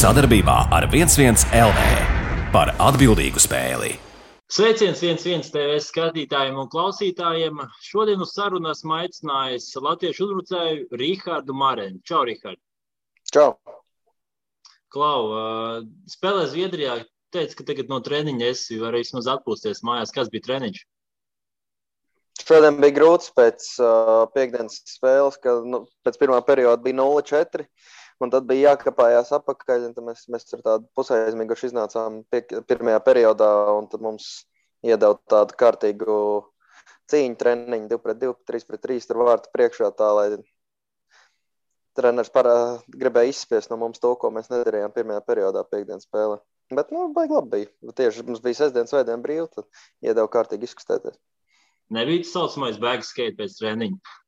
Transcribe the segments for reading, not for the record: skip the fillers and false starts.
Sadarbībā ar 11 LV par atbildīgu spēli. Sveiciens 11 TV skatītājiem un klausītājiem. Šodien uz sarunu esmu aicinājis latviešu uzbrucēju Rihardu Marenu. Čau, Rihard. Čau. Klau, spēlē Zviedrijā. Teici, ka tagad no treniņa esi vari vismaz atpūsties mājās. Kas bija treniņš? Šodien bija grūts pēc piekdienas spēles, kad pēc pirmā perioda bija 0-4. Un tad bija jākapājās apakaļ, un tad mēs ar tādu pusaizmiguši iznācām pirmajā periodā, un tad mums iedeva tādu kārtīgu cīņu treniņu 2-2, 3-3, tur vārtu priekšā tā, lai treneris gribēja izspiest no mums to, ko mēs nedarījām pirmajā periodā piekdienas spēlē. Bet, baigi labi bija. Tieši mums bija sestdien, svētdien brīvi, tad iedeva kārtīgi izkustēties. Nebija tas saucamais bag skate pēc treniņa?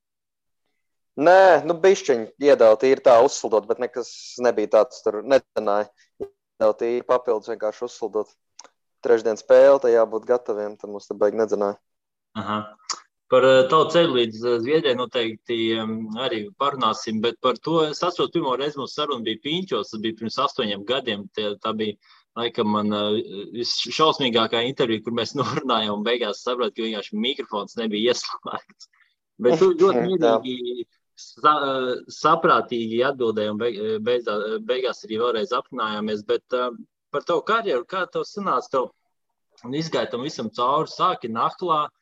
Nē, bišķiņi iedeva tīri tā uzsildot, bet nekas nebija tāds tur netenāja. Iedeva tīri papildus vienkārši uzsildot. Trešdien spēle, tā jābūt gataviem, tad mums te baigi nedzenāja. Aha. Par tavu ceļu līdz Zviedrijai noteikti arī parunāsim, bet par to es atceros, pirmo reizi mums saruna bija Piņķos, tas bija pirms 8 gadiem. Tā bija laikam man visšausmīgākā intervija, kur mēs norunājām un beigās sapratu, ka vienkārši mikrofons nebija ieslēgts. Bet tu ļoti mierīgi saprātīgi atbildēji un beigās arī vēlreiz aprunājāmies, bet par tavu karjeru, kā tev sanāca, tev izgāja tam visam cauri, sāki Nahlā,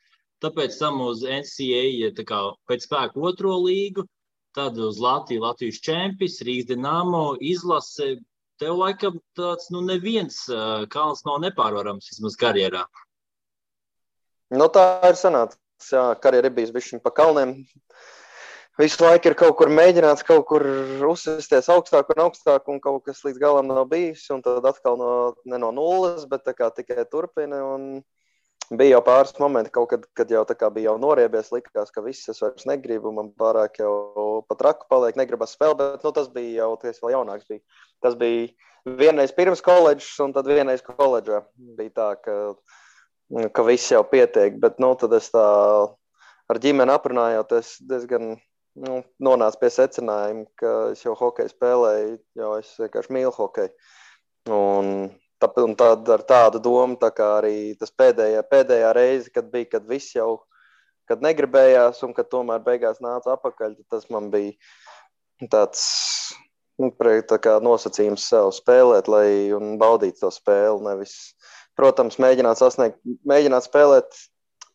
tāpēc tam uz NCAA tā kā pēc spēku 2. līgu, tad uz Latvijas čempis, Rīgas Dinamo, izlase, tev laikam tāds, neviens kalns nav nepārvarams vismaz karjerā. Tā ir sanāca, jā, karjera ir bijis bišķiņ pa kalniem. Visu laiku ir kaut kur mēģināts, kaut kur uzsisties augstāk un kaut kas līdz galam nav bijis, un tad atkal ne no nulles, bet tā kā tikai turpina, un bija jau pāris momenti kaut kad jau tā kā bija jau noriebies, likās, ka viss es vairs negribu, man pārāk jau pat raku paliek, negribas spēlēt, bet tas bija jau, tas vēl jaunāks bija. Tas bija vienreiz pirms koledžas, un tad vienreiz koledžā bija tā, ka viss jau pietiek, bet tad es tā ar ģimeni aprunājoties diezgan nonāca pie secinājuma, ka es jau hokeju spēlēju, jo es vienkārši mīlu hokeju. Un tad ar tādu domu, tā kā arī tas pēdējā reize, kad viss jau, kad negribējās un kad tomēr beigās nāca apakaļ, tas man bija tāds, tā kā nosacījums sev spēlēt, un baudīt to spēli, nevis, protams, mēģināt spēlēt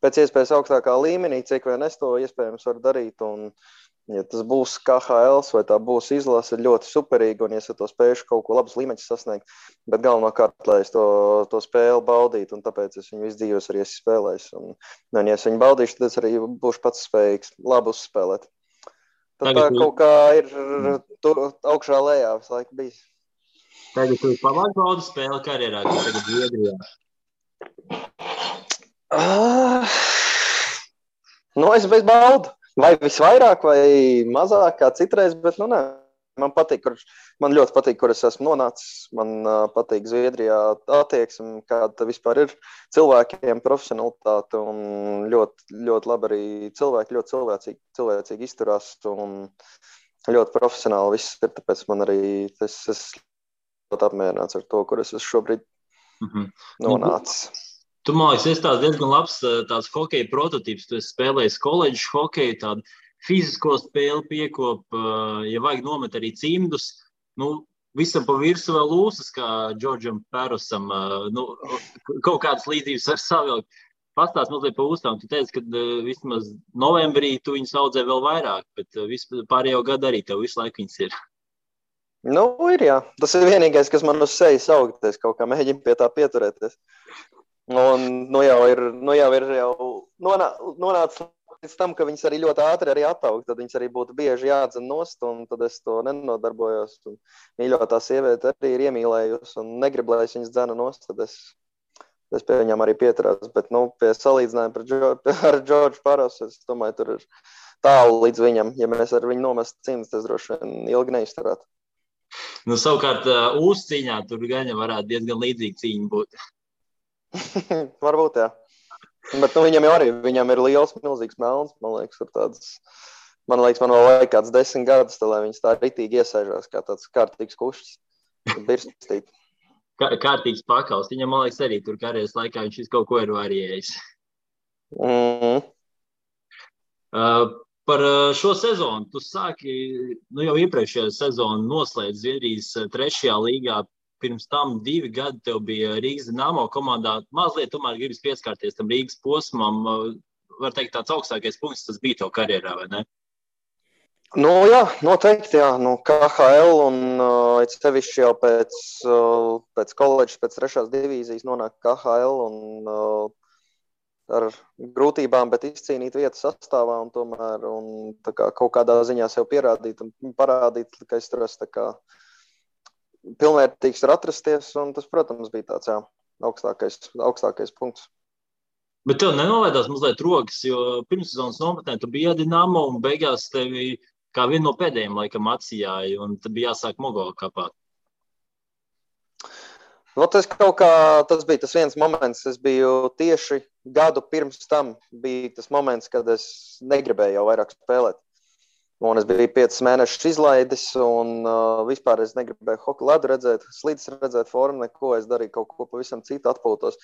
pēc iespējas augstākā līmenī, cik vien es to iespējams varu darīt, un ja tas būs KHL vai tā būs izlase, ļoti superīgi, un ja es to spējuši kaut ko labus līmeņus sasniegt, bet galvenokārt, lai es to spēli baudītu, un tāpēc es viņu visu dzīvos arī esmu spēlējis. Un ja es viņu baudīšu, tad es arī būšu pats spējīgs labi uzspēlēt. Tad tā kaut kā ir augšā lejā visu laiku bijis. Tagad tu pamāc baudu spēli karjerā, kas tagad Zviedrijā? Es bez baudu. Vai visvairāk, vai mazāk kā citreiz, bet nē. Man ļoti patīk, kur es esmu nonācis. Man patīk Zviedrijā attieksme, kāda vispār ir cilvēkiem, profesionalitāte un ļoti, ļoti labi arī cilvēki, ļoti cilvēcīgi izturās un ļoti profesionāli viss ir, tāpēc man arī es ļoti apmierināts ar to, kur es esmu šobrīd nonācis. Tu, man liekas, esi tāds diezgan labs tāds hokeja prototīps. Tu esi spēlējis koledžas hokeju, tādu fizisko spēli piekop, ja vajag nomet arī cimdus. Visam pa virsu vēl lūsas, kā Džordžam Pērusam. Kaut kādas līdzības var savilkt. Pastāst mazliet pa uzstām. Tu teici, ka vismaz novembrī tu viņus audzē vēl vairāk, bet pārējo gadu arī tev visu laiku viņas ir. Ir jā. Tas ir vienīgais, kas man uz sejas augties, kaut kā mēģina pie tā pieturēties. Un jau ir nonācis līdz tam, ka viņas arī ļoti ātri arī attaug, tad viņas arī būtu bieži jādzen nost, un tad es to nenodarbojos. Un mīļotā sieviete arī ir iemīlējusi un negrib, lai es viņas dzena nost, tad es pie viņām arī pieturās. Bet, pie salīdzinājuma ar Džordžu Parasu, es domāju, tur ir tālu līdz viņam. Ja mēs ar viņu nomestu cimdus, tas droši vien ilgi neizturētu. Savukārt, uzcīņā tur gan varētu diezgan līdzīga cīņa būt. Varbūt, jā. Bet viņam ir liels, milzīgs melns, man liekas, ir tāds Man liekas, man vēl vajag kāds 10 gadus, lai viņas tā ritīgi iesēžās kā tāds kārtīgs kušķis. Birstīt. Kārtīgs pakaus. Viņam, man liekas, arī tur karjeras laikā viņš kaut ko ir varējis. Par šo sezonu. Tu sāki, jau iepriekšējā sezonu noslēdz Zviedrijas 3. līgā. Pirms tam 2 gadi tev bija Rīgas Dinamo komandā. Mazliet tomēr gribas pieskārties tam Rīgas posmam. Var teikt, tāds augstākais punkts tas bija tev karjerā, vai ne? Jā, noteikti, jā. KHL un sevišķi jau pēc koledžas, pēc 3. divīzijas nonāk KHL un ar grūtībām, bet izcīnīt vietu sastāvā un tomēr tā kā kaut kādā ziņā sev pierādīt un parādīt, ka es tur esmu tā kā pilnvērtīgs var atrasties, un tas, protams, bija tāds, augstākais punkts. Bet tev nenolaidās mazliet rokas, jo pirmssezonas nometnē tu biji Dinamo un beigās tevi kā vienu no pēdējiem laikam atsijāja, un tad bija jāsāk Mogo kapāt. Tas bija tas viens moments, es biju tieši gadu pirms tam, bija tas moments, kad es negribēju jau vairāk spēlēt. Un es biju 5 mēnešus izlaidis, un vispār es negribēju hokeju ledu redzēt, slīdes redzēt, formu, neko. Es darīju kaut ko pavisam citu, atpūtos.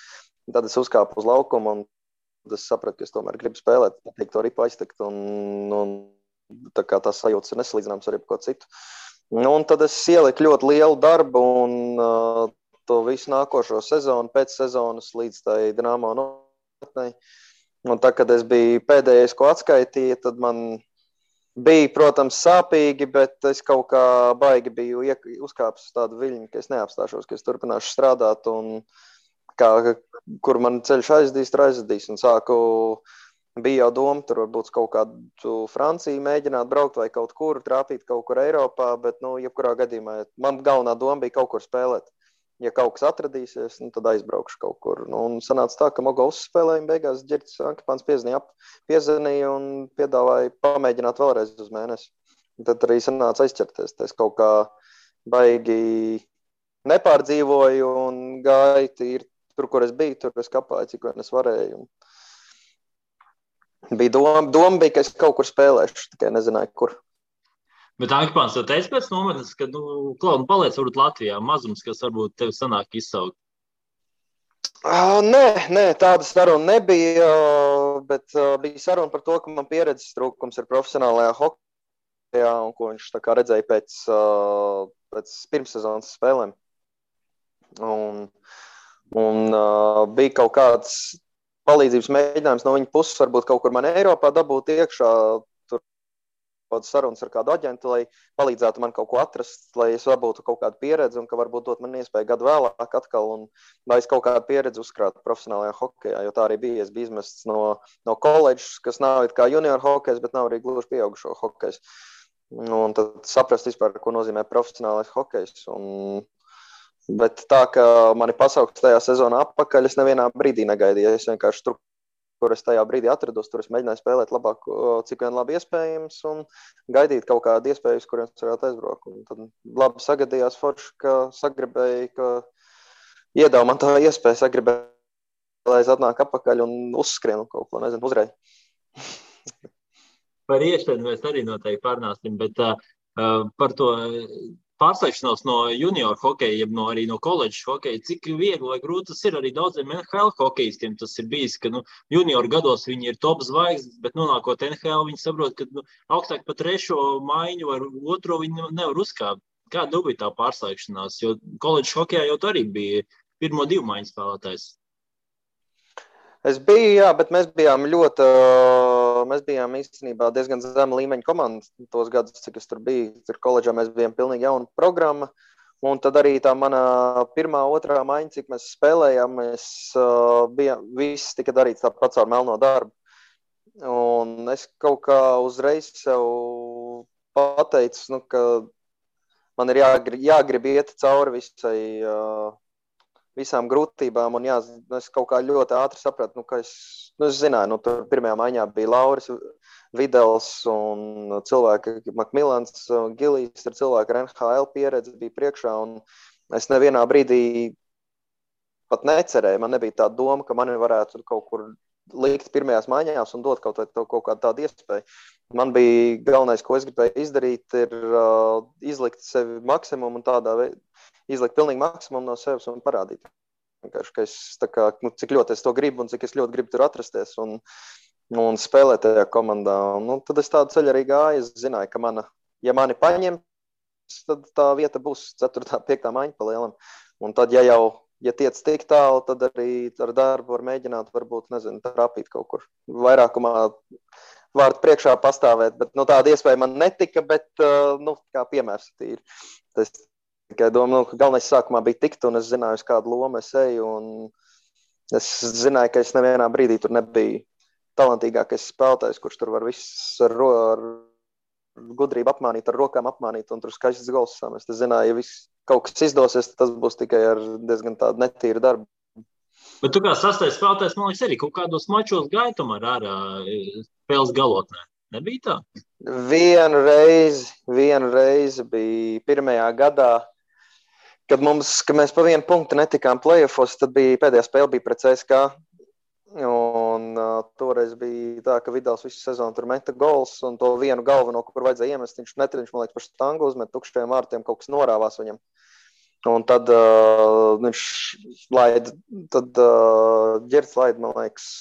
Tad es uzkāpu uz laukumu, un es sapratu, ka es tomēr gribu spēlēt, to ripu aiztekt, un tā kā tās sajūtas ir nesalīdzināmas ar jebko citu. Un tad es ieliku ļoti lielu darbu, un to visu nākošo sezonu, pēc sezonas līdz tai Dinamo nometnei. Un tā, kad es biju pēdējais, ko atskaitīja, tad man bija, protams, sāpīgi, bet es kaut kā baigi biju uzkāpis uz tādu viļņu, ka es neapstāšos, ka es turpināšu strādāt, un kur man ceļš aizdīs, un bija jau doma, tur varbūt kaut kādu Franciju mēģināt braukt vai kaut kur, trāpīt kaut kur Eiropā, bet, jebkurā gadījumā, man galvenā doma bija kaut kur spēlēt. Ja kaut kas atradīsies, tad aizbraukšu kaut kur. Un sanāca tā, ka Mogo uzspēlēja, beigās Ģerķis Ankipāns piezvanīja un piedāvāja pamēģināt vēlreiz uz mēnesi. Un tad arī sanāca aizķerties. Es kaut kā baigi nepārdzīvoju un gāju tīri tur, kur es biju, tur es kapāju, cik vien es varēju. Bija doma bija, ka es kaut kur spēlēšu, tikai nezināju, kur. Bet Ankipāns tev teica pēc nometnes, ka, Klaud, paliec varbūt Latvijā, mazums, kas varbūt tev sanāk izsaukt? Nē, tāda saruna nebija, bet bija saruna par to, ka man pieredzes trūkums ir profesionālajā hokejā, un ko viņš tā kā redzēja pēc pirmssezonas spēlēm. Un bija kaut kāds palīdzības mēģinājums no viņa puses, varbūt kaut kur man Eiropā dabūt iekšā, sarunas ar kādu aģentu, lai palīdzētu man kaut ko atrast, lai es dabūtu kaut kādu pieredzi un ka varbūt dot man iespēju gadu vēlāk atkal un lai es kaut kādu pieredzi uzkrātu profesionālajā hokejā, jo tā arī bija. Es biju izmests no koledžas, kas nav it kā junior hokejs, bet nav arī gluži pieaugušo hokejs. Un tad saprast vispār, ko nozīmē profesionālais hokejs. Bet tā, ka mani pasauks tajā sezonā atpakaļ, es nevienā brīdī negaidīju. Es vienkārši tur, kur es tajā brīdī atrados, tur es mēģināju spēlēt labāk, cik vien labi iespējams, un gaidīt kaut kādu iespēju, uz kuriem es varētu aizbraukt. Un tad labi sagadījās forši, ka sagribēju, ka iedāva man tā iespēju, sagribēju, lai es atnāku atpakaļ un uzskrienu kaut ko, nezinu, uzreiz. Par iešanu mēs arī noteikti pārnāsim, bet par to pārslēgšanos no junior hokeja, arī no koledžas hokeja, cik viegli vai grūti tas ir arī daudziem NHL hokejistiem. Tas ir bijis, ka junior gados viņi ir top zvaigznes, bet nonākot NHL, viņi saprot, ka augstāk pa 3. maiņu vai 2. viņi nevar uzkāpt. Kāda bija tā pārslēgšanās? Jo koledžas hokejā jau arī bija 1. 2 maiņu spēlētājs. Es biju, jā, bet mēs bijām īstenībā diezgan zema līmeņa komanda tos gadus, cik es tur biju. Tur koledžā mēs bijām pilnīgi jauna programma. Un tad arī tā mana 1. 2. maiņa, cik mēs spēlējām, viss tika darīts tāpat caur melno darbu. Un es kaut kā uzreiz sev pateicu, ka man ir jāgrib iet cauri visām grūtībām, un es kaut kā ļoti ātri sapratu, ka es zināju, tur 1. maiņā bija Lauris Videls un cilvēki Makmilans, Gilijs ir cilvēki ar NHL pieredzi, bija priekšā, un es nevienā brīdī pat necerēju, man nebija tā doma, ka mani varētu kaut kur likt pirmajās maiņās un dot kaut kādu tādu iespēju. Man bija galvenais, ko es gribēju izdarīt, ir izlikt sevi maksimumu un tādā veidā izlikt pilnīgi maksimumu no sevis un parādīt. Vienkārši, ka es cik ļoti es to gribu un cik es ļoti gribu tur atrasties un spēlēt tajā komandā. Tad es tādu ceļu arī gāju. Es zināju, ka ja mani paņem, tad tā vieta būs 4. 5. maiņa pa lielam. Un tad, ja tiec tik tālu, tad arī ar darbu var mēģināt, varbūt, trāpīt kaut kur. Vairākumā vārdu priekšā pastāvēt, bet tāda iespēja man netika, bet, kā piemērs tīri. Es tikai domāju, ka galvenais sākumā bija tikt, un es zināju, uz kādu lomu es eju, un es zināju, ka es nevienā brīdī tur nebiju talantīgākais spēlētājs, kurš tur var viss ar gudrību apmānīt, ar rokām apmānīt, un tur skaistas gols samest. Es zināju, ja viss kaut kas izdosies, tas būs tikai ar diezgan tādu netīru darbu. Bet tu kā sastais spēlētājs, man liekas, arī kaut kādos mačos gāja tomēr ārā spēles galotnē. Nebija tā? Vienu reizi bija pirmajā gadā, kad mēs pa 1 punktu netikām play-offos, tad pēdējā spēle bija pret CSKA. Un toreiz bija tā, ka Vidals visu sezonu tur meta gols, un to vienu galveno, kur vajadzēja iemest, viņš man liekas, par štangu uzmet tukšajiem vārtiem, kaut kas norāvās viņam. Un tad viņš Ģerts laida, man liekas,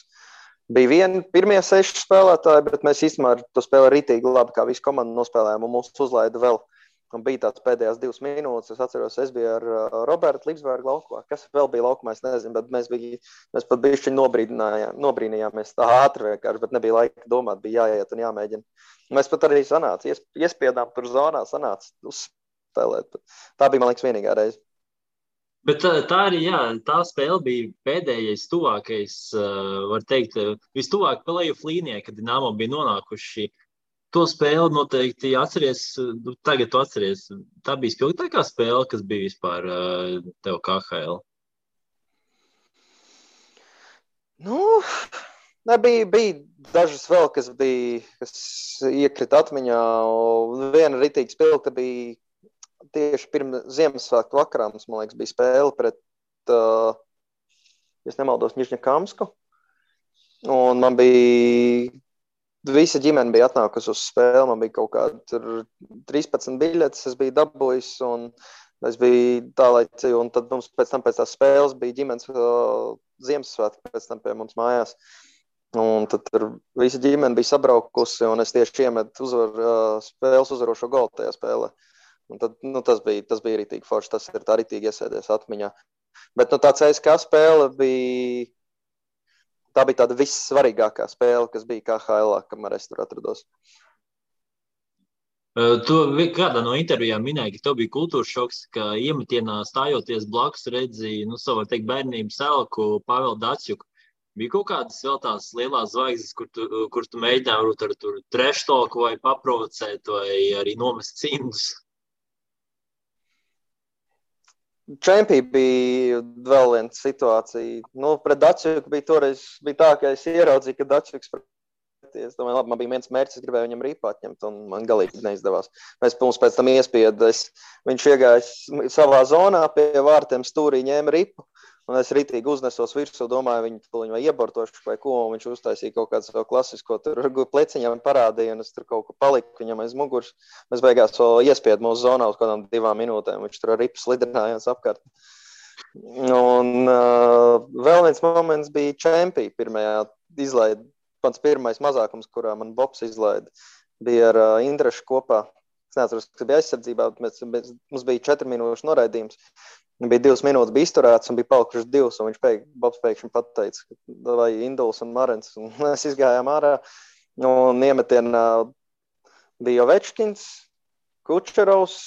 bija pirmie 6 spēlētāji, bet mēs īstenībā to spēli rītīgi labi, kā visu komandu nospēlējām, un mūs uzlaida vēl. Un bija tāds pēdējās 2 minūtes, es atceros, es biju ar Robertu Līpsbergu laukumā. Kas vēl bija laukumā, es nezinu, bet mēs pat bišķiņ nobrīnījāmies tā ātri vienkārši, bet nebija laika domāt, bija jāiet un jāmēģina. Mēs pat arī iespiedām tur zonā, sanāca uzspēlēt. Tā bija, man liekas, vienīgā reize. Bet tā arī, jā, tā spēle bija pēdējais tuvākais, var teikt, vistuvāk play-off līnijai, kad Dinamo bija nonākuši. To spēli noteikti atceries, tagad tu atceries. Tā bija spilgtākā spēle, kas bija vispār tev KHL? Bija dažas vēl, kas iekrita atmiņā. Viena ritīga spilgta bija tieši pirms Ziemassvētku vakarā. Mums, man liekas, bija spēle pret, ja nemaldos, Nižņakamsku. Un man bija... Visa ģimene bija atnākusi uz spēli, man bija kaut kādi 13 biļetes, es biju dabūjis, un es biju tālaicīgi, un tad mums pēc tās spēles bija ģimenes Ziemassvētki pēc tam pie mums mājās. Un tad visa ģimene bija sabraukusi, un es tieši iemetu spēles uzvarošo golu tajā spēlē. Un tad, tas bija ritīgi forši, tas ir tā ritīgi iesēdies atmiņā. Bet tā CSKA spēle bija... Tā bija tāda vissvarīgākā spēle, kas bija KHL-ā, kamēr es tur atrados. Tu kādā no intervijām minēji, ka tev bija kultūras šoks, ka iemetienā stājoties blakus redzīji, savu, teikt, bērnības elku Pāvelu Datsjuku. Bija kaut kādas vēl tās lielās zvaigznes, kur tu mēģināji ar tur treštoku vai paprovocēt vai arī nomest cimdus? Čempī bija vēl viena situācija. Pret Datsjuku bija toreiz tā, ka es ieraudzīju, ka Datsjuks preties. Domāju, labi, man bija viens mērķis, es gribēju viņam ripu atņemt, un man galīgi neizdevās. Mums pēc tam iespieda. Viņš iegāja savā zonā pie vārtiem stūrī, ņēma ripu, un es ritīgi uznesos virsū, domāju, viņu vai iebortošu vai ko, un viņš uztaisīja kaut kādu savu klasisko, tur pleciņām parādīja, un es tur kaut ko paliku viņam aiz muguras. Mēs beigās iespiedu mūsu zonā uz kādām 2 minūtēm, viņš tur ar ripu slidinājās apkārt. Un vēl viens moments bija Čempī pirmajā izlaida, pats pirmais mazākums, kurā man Bobs izlaida, bija ar Indrašu kopā. Es neatceros, kas bija aizsardzībā, bet mums bija 4 minūšu noraidījums. Bija 2 minūtes bija izturēts un bija palikušas 2, un Bobs pēkšņi pateica, vai Induls un Marens. Un mēs izgājām ārā, un iemetienā bija Ovečkins, Kučerovs,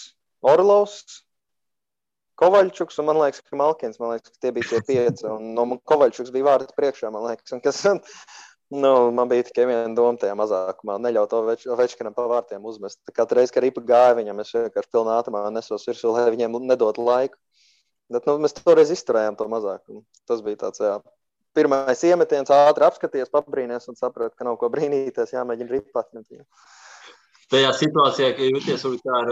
Orlovs, Kovaļčuks un man liekas, ka Malkins, ka tie bija tie 5. Un Kovaļčuks bija vārti priekšā, man liekas. Un kas, man bija tikai viena doma tajā mazākumā, neļaut Ovečkinam pa vārtiem uzmest. Katru reizi, kad ripa gāja viņam, es vienkārši pilnā ātrumā nesos virsū, lai viņiem nedot laiku. Bet mēs toreiz izturējām to mazākumu. Tas bija tāds, pirmais iemetiens, ātri apskaties, pabrīnies un saprat, ka nav ko brīnīties, jāmēģina ripu atņemt. Tajā situācijā, ka jūties kā ar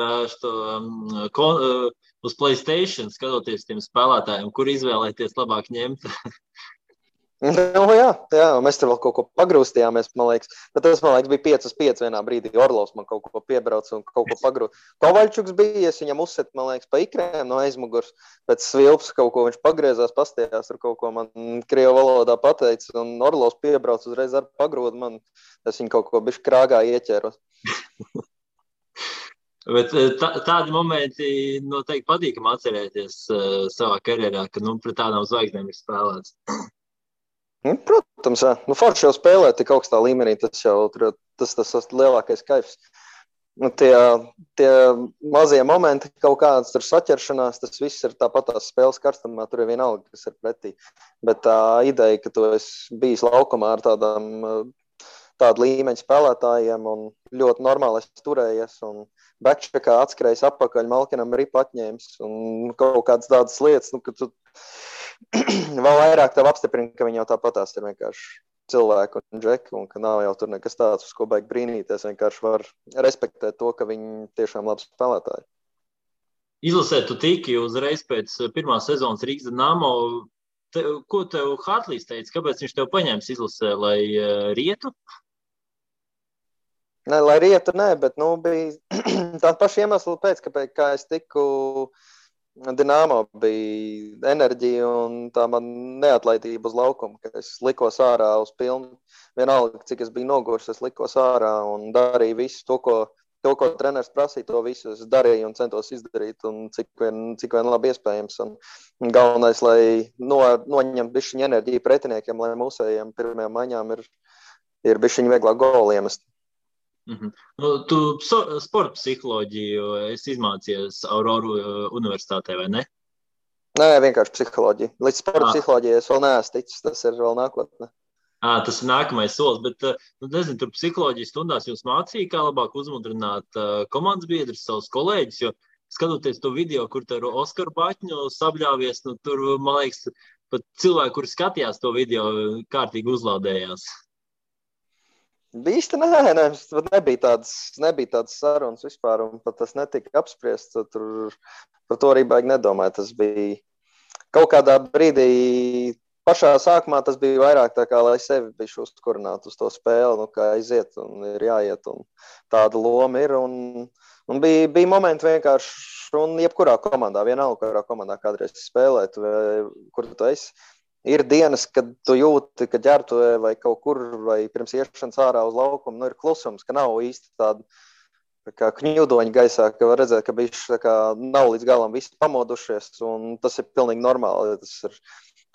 uz PlayStation, skatoties tiem spēlētājiem, kur izvēlēties labāk ņemt? Nu, jā, mēs tur vēl kaut ko pagrūstījāmies, man liekas. Bet tas, man liekas, bija 5-5 vienā brīdī. Orlovs man kaut ko piebrauca un kaut ko pagrūst. Kovaļčuks bija, es viņam uzset, man liekas, pa ikrēm no aizmugurs. Pēc svilps kaut ko viņš pagriezās, pastījās ar kaut ko man krievu valodā pateica. Un Orlovs piebrauca uzreiz ar pagrūdu man. Es viņu kaut ko bišķi krāgā ieķēros. Bet tādi momenti noteikti patīkam atcerēties savā karjerā, ka pret tādām zvaigznēm ir spēlēts. Protams, jā. Forši jau spēlēt tik augstā līmenī, tas jau tas lielākais kaifs. Tie mazie momenti, kaut kādas tur saķeršanās, tas viss ir tāpat tās spēles karstumā, tur ir vienalga, kas ir pretī. Bet tā ideja, ka tu esi bijis laukumā ar tādu līmeņu spēlētājiem un ļoti normāli esi turējies un backcheckā atskrējis apakaļ, Malkinam ripu atņēmis un kaut kādas tādas lietas, ka tu vēl vairāk tev apstiprina, ka viņi jau tāpatās ir vienkārši cilvēki un džeki, un ka nav jau tur nekas tāds, uz ko baigi brīnīties, vienkārši var respektēt to, ka viņi tiešām labi spēlētāji. Izlasē tu tiki uzreiz pēc pirmās sezonas Rīgas Dinamo. Ko tev Hartlīs teica? Kāpēc viņš tev paņēmis izlasē, lai rietu? Nē, lai rietu, nē, bet bija tā paša iemesla pēc, kā es tiku Dinamo, bija enerģija un tā man neatlaidība uz laukumu, ka es likos ārā uz pilnu. Vienalga, cik es biju noguris, es likos ārā un darīju visu to, ko treneris prasīja, to visu es darīju un centos izdarīt, un cik vien labi iespējams. Un galvenais, lai noņemt bišķiņu enerģiju pretiniekiem, lai mūsējiem pirmajām maiņām ir bišķiņu vieglāk goli iemest. Tu sporta psiholoģiju esi izmācījies Auroru universitātē, vai ne? Nē, vienkārši psiholoģija. Līdz sporta psiholoģijai es vēl neesmu ticis, tas ir vēl nākotnē. Tas ir nākamais solis, bet, nezinu, tur psiholoģijas stundās jūs mācīja, kā labāk uzmudrināt komandas biedrus, savus kolēģus, jo skatoties to video, kur tur Oskaru Baķņu sabļāvies, tur, man liekas, pat cilvēki, kuri skatījās to video, kārtīgi uzlādējās. Īsti nē, nebija tādas sarunas vispār, un pat tas netika apspriests, tur par to arī baigi nedomāju. Tas bija kaut kādā brīdī, pašā sākumā tas bija vairāk tā kā, lai sevi bišķi uzkurinātu uz to spēli, kā aiziet un ir jāiet, un tāda loma ir, un bija momenti vienkārši, un jebkurā komandā, vienalga, kurā komandā kādreiz spēlēt, kur tu esi. Ir dienas, kad tu jūti, ka ģērbtuvē vai kaut kur, vai pirms iešanas ārā uz laukumu, ir klusums, ka nav īsti tāda kā kņudoņa gaisā, ka var redzēt, ka bišķi nav līdz galam visi pamodušies, un tas ir pilnīgi normāli. Tas ir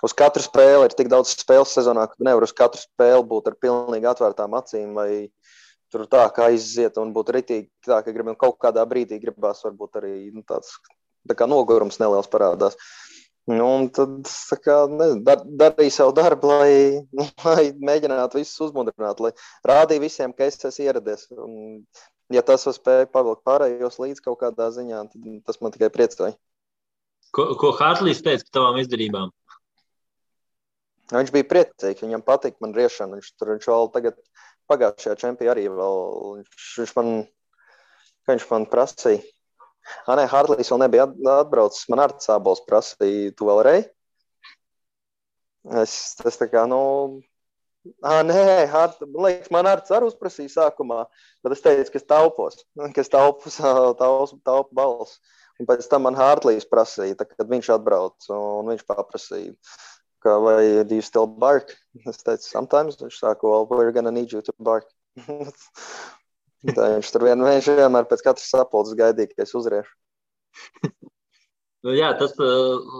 uz katru spēli, ir tik daudz spēles sezonā, ka nevar uz katru spēli būt ar pilnīgi atvērtām acīm, vai tur tā kā aiziet un būt ritīgi tā, ka kaut kādā brīdī gribās varbūt arī tāds tā kā nogurums neliels parādās. Un tad darīju savu darbu, lai mēģinātu visus uzmudrināt, lai rādīju visiem, ka es esmu ieradies. Un, ja tas var spēja pavilkt pārējos līdz kaut kādā ziņā, tad tas man tikai priecēja. Ko Hartlīs teica par tavām izdarībām? Viņš bija priecīgs, viņam patika man riešana. Viņš vēl tagad pagājušajā čempionā arī vēl, viņš man prasīja. Nē, Hartlīs vēl nebija atbraucis. Man Arts Ābols prasīja, tu vēl rei? Es tā kā, nē, man Arts arī uzprasīja sākumā, bet es teicu, ka es taupu balsu. Un pēc tam man Hartlīs prasīja, kad viņš atbrauc, un viņš paprasīja, ka vai do you still bark? Es teicu, sometimes. Viņš sāka, well, we're gonna need you to bark. Tā viņš tur vienmēr pēc katras sapulces gaidīja, ka es uzriešu. Jā, tas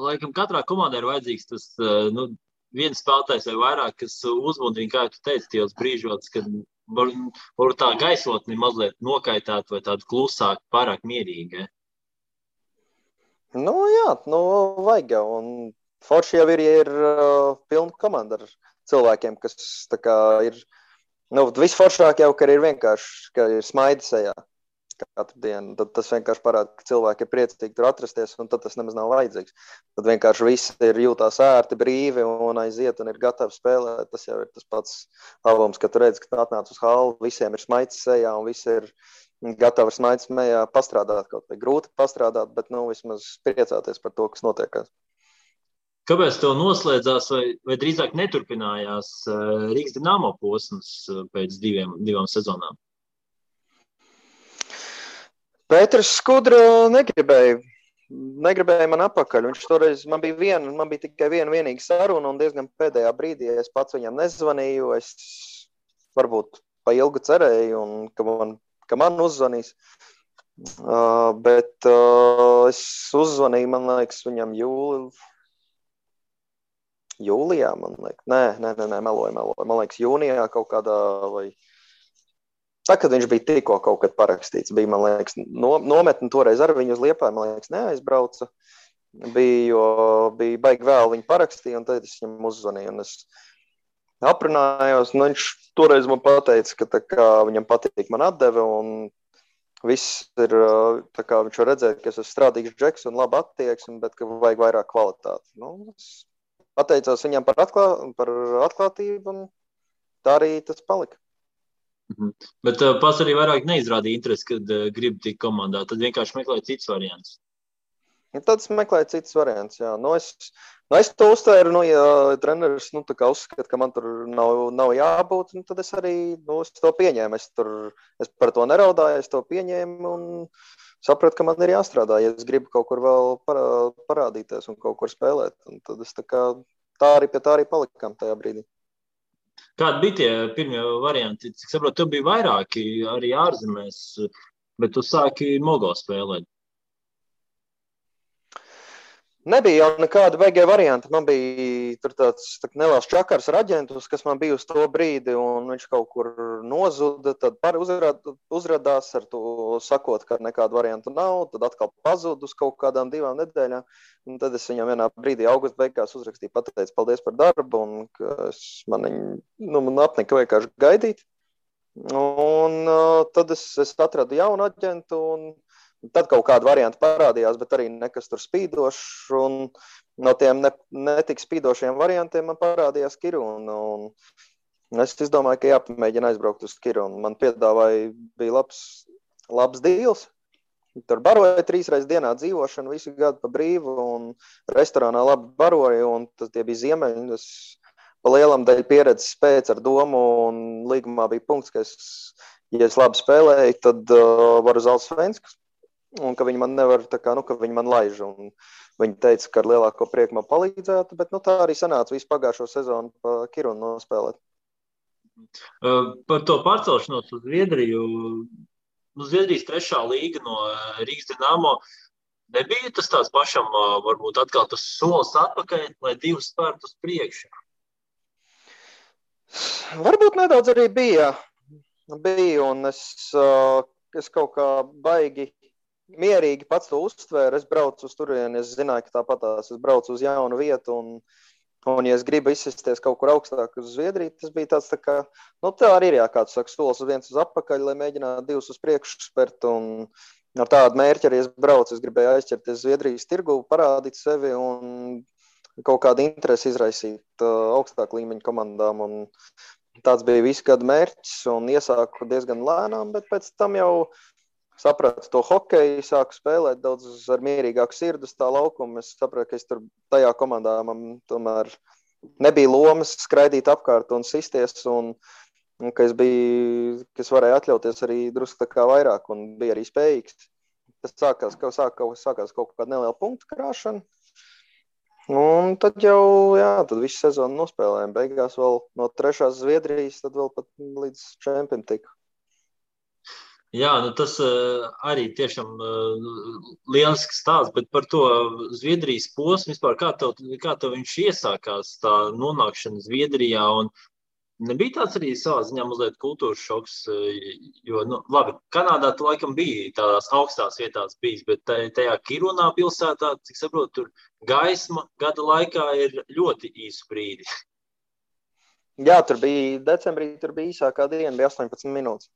laikam katrā komandā ir vajadzīgs tas viens spēlētājs vai vairāk, kas uzmudrina, kā tu teici, tajos brīžos, kad var tā gaisotni mazliet nokaitāt vai tādu klusāku, pārāk mierīgi. Jā, vajag jau. Un forši jau ir pilna komanda ar cilvēkiem, kas tā kā ir. Visforšāk jau, ka ir vienkārši, ka ir smaidi sejā katru dienu. Tad tas vienkārši parāda, ka cilvēki ir priecīgi tur atrasties, un tad tas nemaz nav vajadzīgs. Tad vienkārši visi ir jūtās ērti, brīvi un aiziet un ir gatavi spēlēt. Tas jau ir tas pats labums, ka tu redzi, ka atnāc uz hallu, visiem ir smaids sejā un visi ir gatavi ar smaids mejā pastrādāt kaut vai grūti pastrādāt, bet vismaz priecāties par to, kas notiekās. Kāpēc tev noslēdzās vai drīzāk neturpinājās Rīgas Dinamo posms pēc divām sezonām? Pēters Skudra negribēja man apakaļ. Viņš toreiz, man bija tikai vienīga saruna un diezgan pēdējā brīdī es pats viņam nezvanīju. Es varbūt pa ilgu cerēju, un ka man uzzvanīs. Bet es uzzvanīju, man liekas, viņam jūlijā, man liekas. Nē, meloju. Man liekas, jūnijā kaut kādā vai... Tā, kad viņš bija tikko kaut kad parakstīts, bija, man liekas, nometni toreiz ar viņu uz Liepāju, man liekas, neaizbrauca. Bija baigi vēl viņu parakstīja, un tad es viņam uzzvanīju, un es aprunājos. Viņš toreiz man pateica, ka tā kā viņam patīk man atdeve, un viss ir, tā kā viņš var redzēt, ka es esmu strādīgs džeks un labi attieksmi, bet ka vajag vairāk kvalitāti. Es pateicos viņam par atklātību, un tā arī tas palika. Bet pats arī vairāk neizrādīja interesi, kad grib tikt komandā. Tad vienkārši meklēja citus variantus. Tad es meklēju citus variantus, jā. Es to uztvēru, ja treneris tā kā uzskata, ka man tur nav jābūt, tad es arī es to pieņēmu. Es par to neraudāju, es to pieņēmu un sapratu, ka man ir jāstrādā, ja es gribu kaut kur vēl parādīties un kaut kur spēlēt. Un tad es tā arī palikām tajā brīdī. Kādi bija tie pirmie varianti? Cik saprotu, tev bija vairāki arī ārzemēs, bet tu sāki Mogo spēlēt. Nebija jau nekāda beigie varianti. Man bija tur tāds neliels čakars ar aģentus, kas man bija uz to brīdi, un viņš kaut kur nozuda, tad uzradās ar to sakot, ka nekāda varianta nav, tad atkal pazud uz kaut kādām 2 nedēļām, un tad es viņam vienā brīdī augusta beigās uzrakstīju, pateicu paldies par darbu, un ka man apnika vienkārši gaidīt, un tad es atradu jaunu aģentu, un tad kaut kāda varianta parādījās, bet arī nekas tur spīdošs, un no tiem netik spīdošiem variantiem man parādījās Kiruna, un es izdomāju, ka jāpamēģina aizbraukt uz Kirunu. Man piedāvāja, bija labs dīls, tur baroja 3 reizes dienā dzīvošanu, visu gadu pa brīvu, un restorānā labi baroja, un tie bija ziemeļi, es pa lielam daļu pieredzes pēc ar domu, un līgumā bija punkts, ka ja es labi spēlēju, tad varu uz Alsvenskas. Un ka viņi man nevar, ka viņi man laiž, un viņi teica, ka ar lielāko prieku man palīdzētu, bet tā arī sanāca visu pagājušo sezonu pa Kirunu nospēlēt. Par to pārcelšanos uz Zviedriju, Zviedrijas 3. līga no Rīgas Dinamo, nebija tas tāds pašam, varbūt atkal tas solis atpakaļ, lai 2 spērtu uz priekšu? Varbūt nedaudz arī bija, un es kaut kā baigi mierīgi pats to uztvēru, es braucu uz turieni, es zināju, ka tāpatās es braucu uz jaunu vietu, un ja es gribu izsisties kaut kur augstāk uz Zviedriju, tas bija tāds tā kā, tā arī ir kāds saka, solis viens uz apakaļ, lai mēģinātu 2 uz priekšu spert, un ar tādu mērķi arī es braucu, es gribēju aizķerties Zviedrijas tirgu, parādīt sevi un kaut kādu interesi izraisīt augstāku līmeņu komandām, un tāds bija visu gadu mērķis, un iesāku diezgan lēnām, bet pēc tam jau sapratu to hokeju, sāku spēlēt daudz ar mierīgāku sirdu uz tā laukuma. Es sapratu, ka es tur tajā komandā man tomēr nebija lomas skraidīt apkārt un sisties, un ka es varēju atļauties arī drusku tā kā vairāk un bija arī spējīgs. Tas sākās kaut kāda neliela punktu krāšana. Un tad tad visu sezonu nospēlējām. Beigās vēl no 3. Zviedrijas, tad vēl pat līdz čempim tika. Jā, tas arī tiešām lielisks stāsts, bet par to Zviedrijas posmu vispār, kā tev viņš iesākās, tā nonākšana Zviedrijā, un nebija tāds arī savā ziņā mazliet kultūras šoks, jo, labi, Kanādā tu laikam bija tādās augstās vietās bijis, bet tajā Kirunā pilsētā, cik saprotu, tur gaisma gada laikā ir ļoti īsu brīdi. Jā, decembrī tur bija īsākā diena, bija 18 minūtes.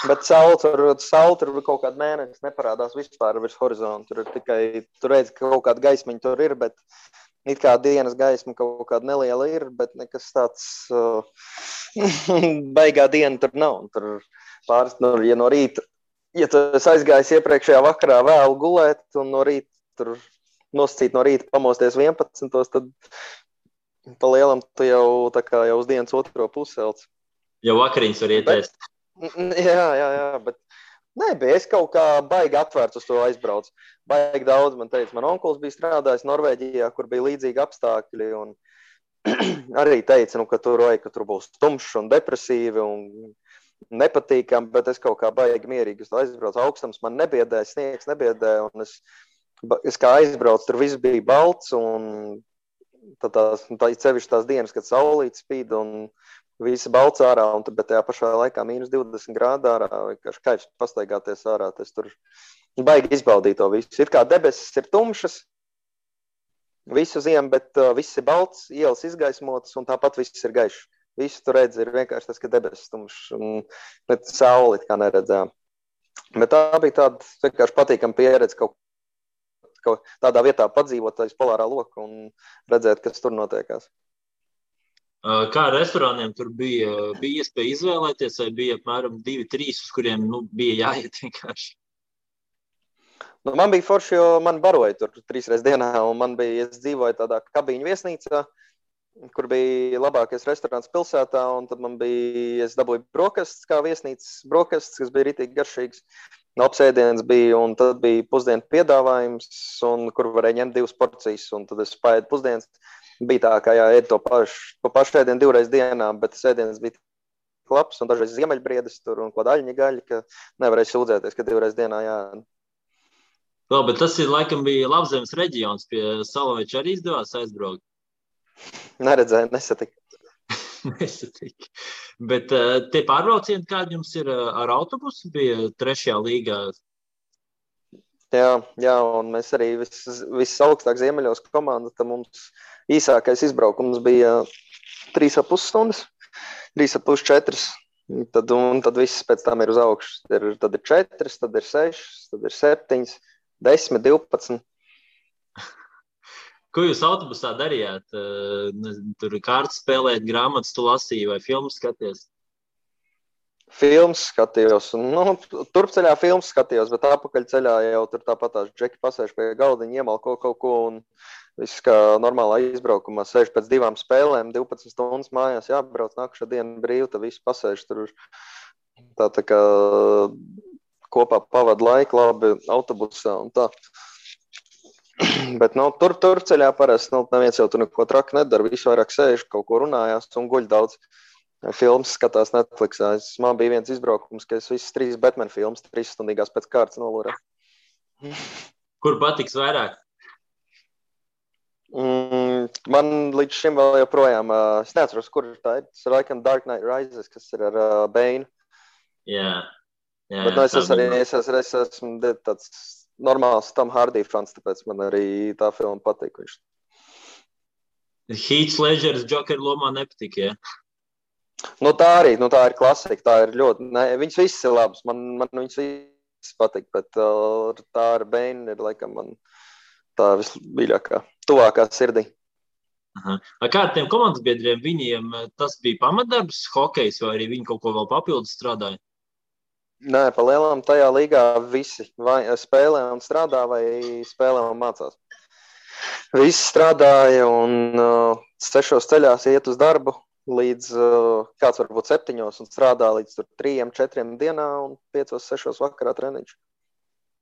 Bet saule tur kaut kāda mēnesis neparādās vispār virs horizonta. Tur ir tikai, tu redzi, ka kaut kāda gaismiņa tur ir, bet it kā dienas gaisma kaut kāda neliela ir, bet nekas tāds baigā diena tur nav. Tur pāris, ja no rīta, ja tu esi aizgājis iepriekšējā vakarā vēl gulēt, un no rīta tur nosacīt no rīta, pamosties 11, tad pa lielam tu jau tā kā jau uz dienas otro puselts. Jau vakariņas var ietēst. Jā, bet nebija. Es kaut kā baigi atvērts uz to aizbraucu. Baigi daudz man teica. Man onkulis bija strādājis Norvēģijā, kur bija līdzīgi apstākļi. Un arī teica, ka tur būs tumšs un depresīvi un nepatīkami, bet es kaut kā baigi mierīgi uz to aizbraucu. Augstums man nebiedēja, sniegs nebiedēja. Un es kā aizbraucu, tur viss bija balts. Un tā cevišķi tās dienas, kad saulīt spīd un visi balts ārā, bet tajā pašā laikā -20 grādu ārā, vienkārši kaifs pastaigāties ārā. Es tur baigi izbaudīju to visu. It kā debesis ir tumšas visu ziemu, bet viss ir balts, ielas izgaismotas un tāpat viss ir gaišs. Visu tur redz ir vienkārši tas, ka debesis tumšs un sauli kā neredzējām. Bet tā bija tāda vienkārši patīkama pieredze kaut tādā vietā padzīvot aiz polārā loka un redzēt, kas tur notiekās. Kā ar restorāniem tur bija iespēja izvēlēties, vai bija apmēram 2-3, uz kuriem bija jāiet vienkārši? Man bija forši, jo man baroja tur 3 reizes dienā, un es dzīvoju tādā kabīņu viesnīcā, kur bija labākais restorāns pilsētā, un tad es dabūju brokastis kā viesnīcas brokastis, kas bija ritīgi garšīgs. Apsēdiens bija, un tad bija pusdienu piedāvājums, un kur varēja ņemt 2 porcijas, un tad es paēdu pusdienas. Bija tā, ka ēd to pašu ēdienu 2 reizes dienā, bet ēdiens bija labs, un dažreiz ziemeļbriedes tur un ko daļņa gaļa, ka nevarēja sūdzēties, ka 2 reizes dienā jāēd. Vēl, bet tas laikam bija Labzemes reģions, pie Salaveča arī izdevās aizbraukt? Neredzēju, nesatiku. Nesatiku. Bet tie pārbraucieni, kādi jums ir ar autobusu, bija 3. līgā? Jā, un mēs arī viss augstāk ziemeļos komanda, tad mums īsākais izbraukums bija 3,5 stundas, 3,5–4. Tad viss pēc tam ir uz augšu. Tad ir 4, tad ir 6, tad ir 7, 10, 12. Ko jūs autobusā darījāt? Tur kārtas spēlēt, grāmatas tu lasīji vai filmas skaties? Filmas skatījos. Turpceļā filmas skatījos, bet apakaļceļā jau tur tāpatās džeki pasēž pie galdiņa, iemalko kaut ko un viss kā normālā izbraukumā. Sēž pēc 2 spēlēm, 12 stundas mājās jābrauc, nākušā diena brīva, tad viss pasēž tur tā kā kopā pavada laiku labi autobusā un tā. Bet turpceļā parasti neviens jau tur neko traki nedara, visu vairāk sēž, kaut ko runājās un guļ daudz. Filmas skatās Netflixā. Man bija viens izbraukums, ka es visas 3 Batman filmas 3 stundīgās pēc kārtas nolūrē. Kur patiks vairāk? Man līdz šim vēl joprojām, es neatceros, kur tā ir. Tas ir laikam Dark Knight Rises, kas ir ar Bane. Jā. Bet es esmu tāds normāls Tom Hardy fans, tāpēc man arī tā filma patīk. Heath Ledgers Joker lomā nepatīk, jā? Tā arī, tā ir klasika, tā ir ļoti, viņas viss ir labas, man viņas viss patīk, bet tā ar Bane ir laikam man tā vismīļākā, tuvākā sirdī. Kā ar tiem komandas biedriem, viņiem tas bija pamatdarbs, hokejs, vai arī viņi kaut ko vēl papildus strādāja? Nē, pa lielām tajā līgā visi vai spēlē un strādā, vai spēlē un mācās. Visi strādāja un 6 ceļās iet uz darbu. Līdz kāds varbūt 7 un strādā līdz 3-4 dienā un 5-6 vakarā treniņš.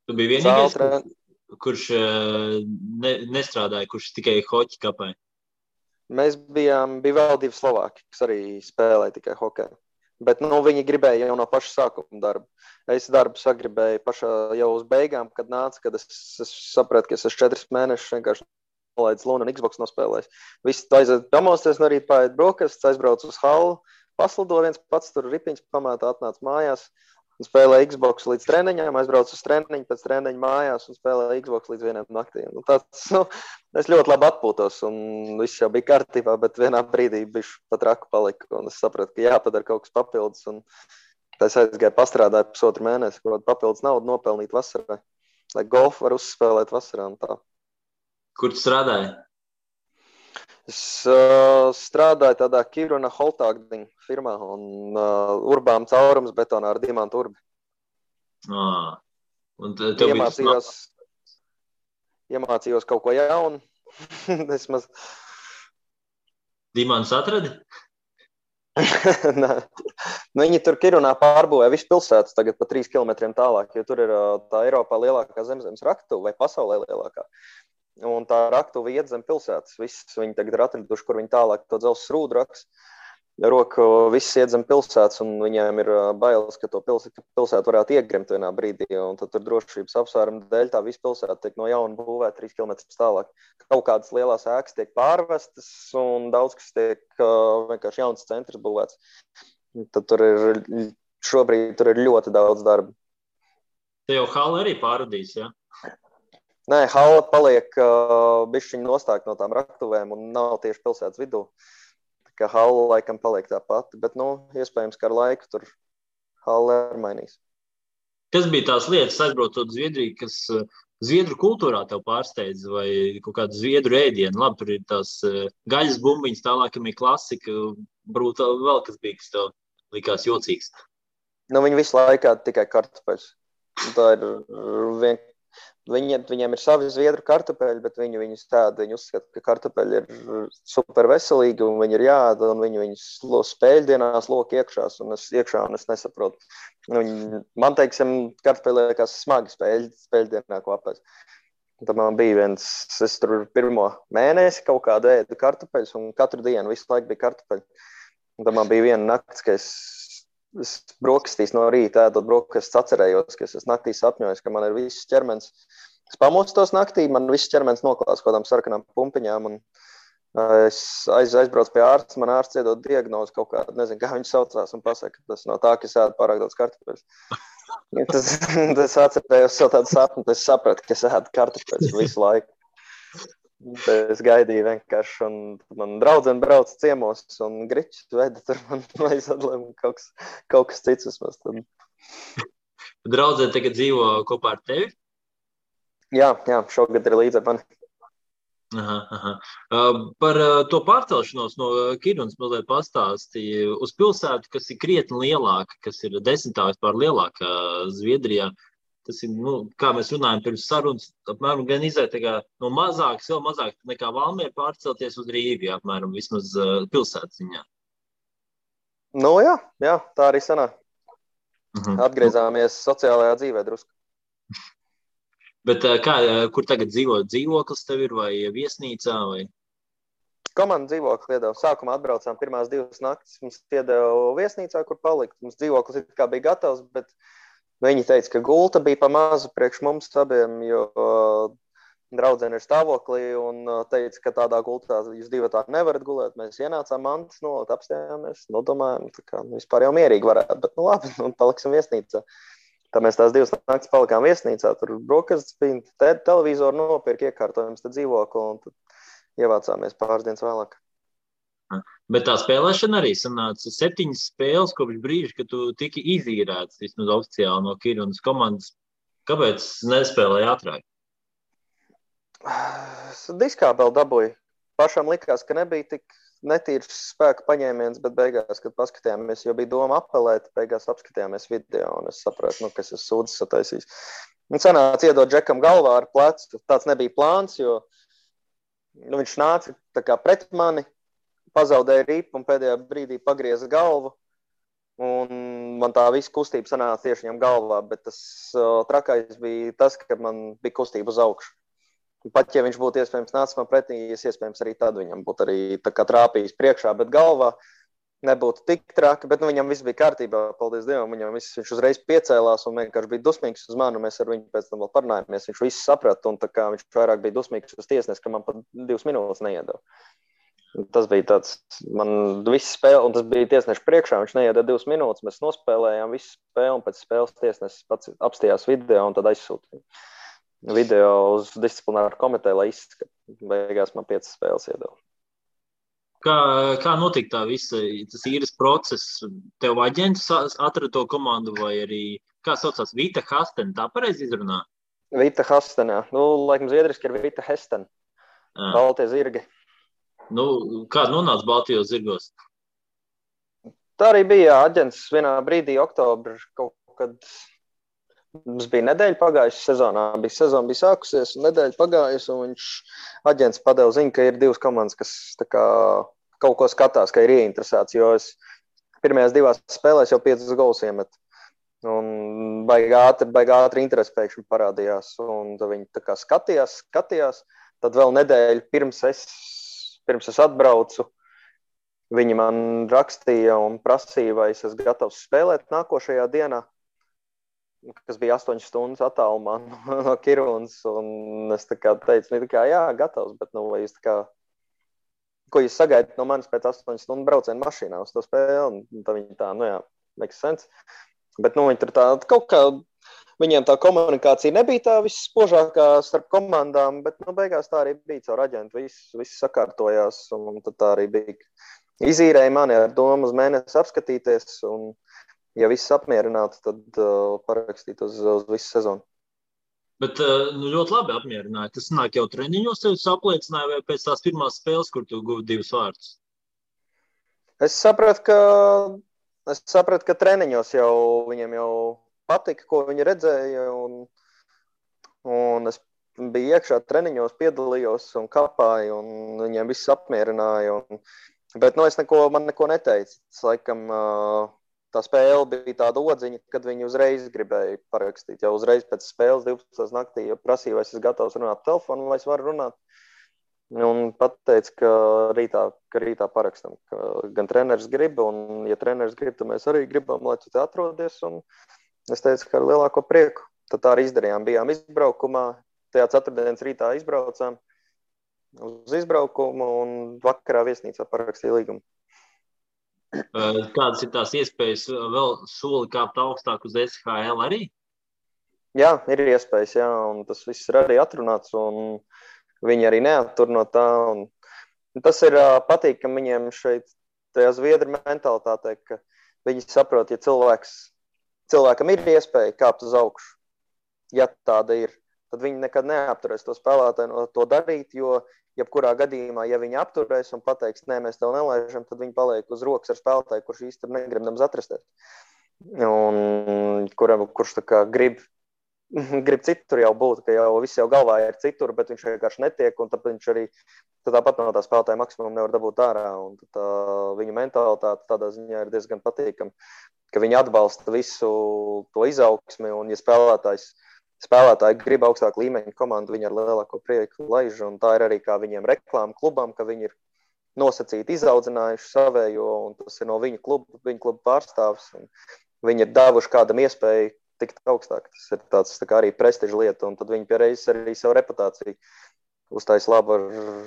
Tu biji vienīgais, kurš nestrādāja, kurš tikai hoķi kapēja? Mēs bija vēl 2 Slovāki, kas arī spēlēja tikai hokeju. Bet viņi gribēja jau no paša sākuma darbu. Es darbu sagribēju pašā jau uz beigām, kad nāca, kad es sapratu, ka es 4 mēnešus vienkārši nolaidis Luna un Xbox nospēlējis. Visi aiziet pamosties no rīta, paēd brokastis, aizbrauc uz hallu, paslido viens pats tur ripiņas pamētā, atnāc mājās un spēlē Xbox līdz treniņām, aizbrauc uz treniņu, pēc treniņa mājās un spēlē Xbox līdz 1 naktī. Es ļoti labi atpūtos un viss jau bija kārtībā, bet vienā brīdī bišķi pat raku palika un es sapratu, ka jāpadara kaut kas papildus un es aizgāju pastrādāju 1,5 mēnesi, kaut papildus naudu nopelnīt vasarā, lai golfu var uzspēlēt vasarā un tā. Kur tu strādāji? Es strādāju tādā Kiruna Holtāgdiņa firmā un urbām caurums betonā ar diamantu urbi. Un tev Iemācījos, iemācījos kaut ko jaunu. Vismaz. Dimants atradi? Viņi tur Kirunā pārbūvē visu pilsētas tagad pa 3 kilometriem tālāk, jo tur ir tā Eiropā lielākā zemzemes raktuve vai pasaulē lielākā. Un tā raktuve iet zem pilsētas. Viss viņi tagad ir atraduši, kur viņi tālāk to dzelzs rūdu raks. Roku viss iet zem pilsētas, un viņiem ir bailes, ka to pilsētu varētu iegrimt vienā brīdī, un tad tur drošības apsvērumu dēļ tā visa pilsēta tiek no jauna būvēta 3 kilometrus tālāk. Kaut kādas lielās ēkas tiek pārvestas, un daudz kas tiek vienkārši jauns centrs būvēts. Tad šobrīd tur ir ļoti daudz darba. Te jau hala arī pārradīs, ja? Nē, hala paliek bišķiņ nostāk no tām raktuvēm un nav tieši pilsētas vidū. Ka hala laikam paliek tā pati, bet, iespējams, ka ar laiku tur hala ir mainīs. Kas bija tās lietas, aizbraucot Zviedriju, kas zviedru kultūrā tev pārsteidz, vai kaut kādu zviedru ēdienu? Labi, tur ir tās gaļas bumbiņas, tālākam ir klasika, varbūt vēl kas bija, kas tev likās jocīgs. Viņi visu laikā tikai kartupeļus. Tā ir Viņiem ir savi zviedru kartupeļi, bet viņi uzskata, ka kartupeļi ir super veselīgi un viņi ir jāēda, un viņi spēļdienās lok iekšās, un es nesaprotu. Man, teiksim, kartupeļi liekas smagi spēļdienā kopēc. Tad man bija es tur pirmo mēnesi kaut kādu ēdu kartupeļus, un katru dienu visu laiku bija kartupeļi. Un tad man bija viena nakts, ka es brokastīs no rīta ēdot brokastis, atcerējos, ka es naktī sapņojos, ka man ir viss ķermenis. Es pamostos naktī, man viss ķermenis noklās kaut kādām sarkanām pumpiņām, un es aizbraucu pie ārsta, man ārsts iedod diagnozi kaut kādu, nezinu, kā viņi saucās, un pasaka, ka tas no tā, ka es ēdu pārāk daudz kartupeļus. Tas atcerējos savu tādu sapni, es sapratu, ka es ēdu kartupeļus visu laiku. Es gaidīju vienkārši, un man draudzene brauca ciemos, un griķis veda tur man aizadlēm kaut kas cits vismaz. Draudzene tagad dzīvo kopā ar tevi? Jā, šogad ir līdz ar mani. Aha. Par to pārcelšanos no Kirunas mazliet pastāstīja uz pilsētu, kas ir krietni lielāka, kas ir 10 vispār lielākā Zviedrijā. Tas ir, kā mēs runājam pirms sarunas, apmēram gan izēt no mazākas, vēl mazāk nekā Valmiera pārcelties uz Rīgu, apmēram vismaz pilsētas ziņā. Jā, tā arī sanāk. Atgriezāmies sociālajā dzīvē drusku. Bet kur tagad dzīvo? Dzīvoklis tev ir vai viesnīcā? Vai? Komanda dzīvoklis iedeva. Sākumā atbraucām pirmās 2 naktis, mums iedeva viesnīcā, kur palikt. Mums dzīvoklis it kā bija gatavs, bet viņi teica, ka gulta bija pa mazu priekš mums abiem, jo draudzene ir stāvoklī un teica, ka tādā gultā jūs 2 tā nevarat gulēt. Mēs ienācām mantas, apstājāmies, domājām, ka vispār jau mierīgi varētu, bet labi, paliksim viesnīcā. Tā mēs tās 2 naktis palikām viesnīcā, tur brokastis bija, televizoru nopirka, iekārtojums tad dzīvokli un tad ievācāmies pāris dienas vēlāk. Bet tā spēlēšana arī sanāca 7 spēles kopš brīža, kad tu tiki izīrēts vismaz oficiāli no Kirunas komandas. Kāpēc nespēlēji ātrāk? Diskābeli dabūju. Pašam likās, ka nebija tik netīrs spēka paņēmiens, bet beigās, kad paskatījāmies, jo bija doma apelēt, beigās apskatījāmies video un es sapratu, ka es esmu sūdzes sataisījis. Un sanāca iedot Džekam galvā ar plecu. Tāds nebija plāns, jo viņš nāca tā kā pret mani, pazaudēja ripu un pēdējā brīdī pagrieza galvu. Un man tā visa kustība sanāca tieši viņam galvā, bet tas trakais bija tas, ka man bija kustība uz augšu. Pat ja viņš būtu iespējams nācis man pretī, iespējams arī tad viņam būtu arī tā kā trāpījis priekšā, bet galvā nebūtu tik traki, bet viņam viss bija kārtībā, paldies Dievam, viņš uzreiz piecēlās un vienkārši bija dusmīgs uz mani, mēs ar viņu pēc tam vēl parunājāmies, viņš visu saprata un tā kā viņš vairāk bija dusmīgs uz tiesnesi, ka man pat 2 minūtes neiedeva. Tas bija tāds, man viss spēle, un tas bija tiesneša priekšā, viņš neiedeva 2 minūtes, mēs nospēlējām visu spēli, un pēc spēles tiesnesis pats apstījās video, un tad aizsūtīja video uz disciplināru komiteju, lai izskata. Beigās man 5 spēles iedeva. Kā notika tā visa, tas īres process? Tev aģents atrada to komandu, vai arī, kā saucās, Vita Hasten, tā pareizi izrunā? Vita Hasten, jā. Laikam zviedriski ir Vita Hasten, Baltie zirgi. Kā nonāca Baltijos zirgos? Tā arī bija aģents vienā brīdī, oktobra, kaut kad Mums bija nedēļa pagājusi sezonā, sezona bija sākusies, un nedēļa pagājusi, un viņš aģents padeva ziņu, ka ir 2 komandas, kas tā kā kaut ko skatās, ka ir ieinteresēts, jo es pirmajās 2 spēlēs jau 5 golus iemetu. Un baigi ātri interesi pēkšņi parādījās, un tad viņi tā kā skatījās, tad vēl nedēļu pirms es atbraucu, viņi man rakstīja un prasīja, vai es esmu gatavs spēlēt nākošajā dienā, kas bija 8 stundas attālumā no Kirunas, un es tā kā teicu, jā, gatavs, bet vai jūs tā kā, ko jūs sagaidat no manis pēc 8 stundu braucienu mašīnā uz to spēli, un tad viņi tā, jā, makes sense. Bet, viņi tur tā, kaut kā, viņiem tā komunikācija nebija tā visspožākā starp komandām, bet, beigās tā arī bija caur aģentu, viss sakārtojās, un tad tā arī bija. Izīrēja mani ar domu uz mēnesi apskatīties, un ja viss apmierinātu, tad parakstīt uz visu sezonu. Bet ļoti labi apmierināja. Tas nāk jau treniņos, tev apliecināja vai pēc tās pirmās spēles, kur tu guvi 2 vārdus? Es sapratu, ka treniņos jau viņiem jau patika, ko viņi redzēja, un es biju iekšā treniņos, piedalījos un kapāju, un viņiem viss apmierināja. Bet man neko neteica. Es laikam tā spēle bija tāda odziņa, kad viņi uzreiz gribēja parakstīt. Jau uzreiz pēc spēles 12. naktī prasīja, vai es esmu gatavs runāt telefonu, vai es varu runāt. Un pateica, ka rītā parakstam. Gan treneris grib, un ja treneris grib, tad mēs arī gribam, lai tu te atrodies. Un es teicu, ka ar lielāko prieku. Tad tā arī izdarījām. Bijām izbraukumā, tajā ceturtdienas rītā izbraucām uz izbraukumu un vakarā viesnīcā parakstīja līgumu. Kādas ir tās iespējas vēl soli kāpt augstāk uz SHL arī? Jā, ir iespējas, jā, un tas viss ir arī atrunāts, un viņi arī neattur no tā. Un tas ir patīkami viņiem šeit, tajā Zviedru mentalitātē, ka viņi saprot, ja cilvēkam ir iespēja kāpt uz augšu, ja tāda ir, tad viņi nekad neapturēs to spēlētāju no to darīt, jo jebkurā gadījumā, ja viņi apturēs un pateiks, nē, mēs tev nelaižam, tad viņi paliek uz rokas ar spēlētāju, kurš īsti negrib nemaz atrasties. Un kurš tā kā grib citur jau būt, ka viss jau galvā ir citur, bet viņš vienkārši netiek, un tad viņš arī tāpat no tā spēlētāja maksimumu nevar dabūt ārā. Un tā viņu mentalitāte tādā ziņā ir diezgan patīkama, ka viņi atbalsta visu to izaugsmi, un ja spēlētāji grib augstāku līmeņu komandu, viņi ar lielāko prieku laiž, un tā ir arī kā viņiem reklāma klubam, ka viņi ir nosacīti izaudzinājuši savējo, un tas ir no viņu kluba pārstāvs, un viņi ir devuši kādam iespēju tikt augstāk. Tas ir tāds tā kā arī prestiža lieta, un tad viņi piereiz arī savu reputāciju uztais labu ar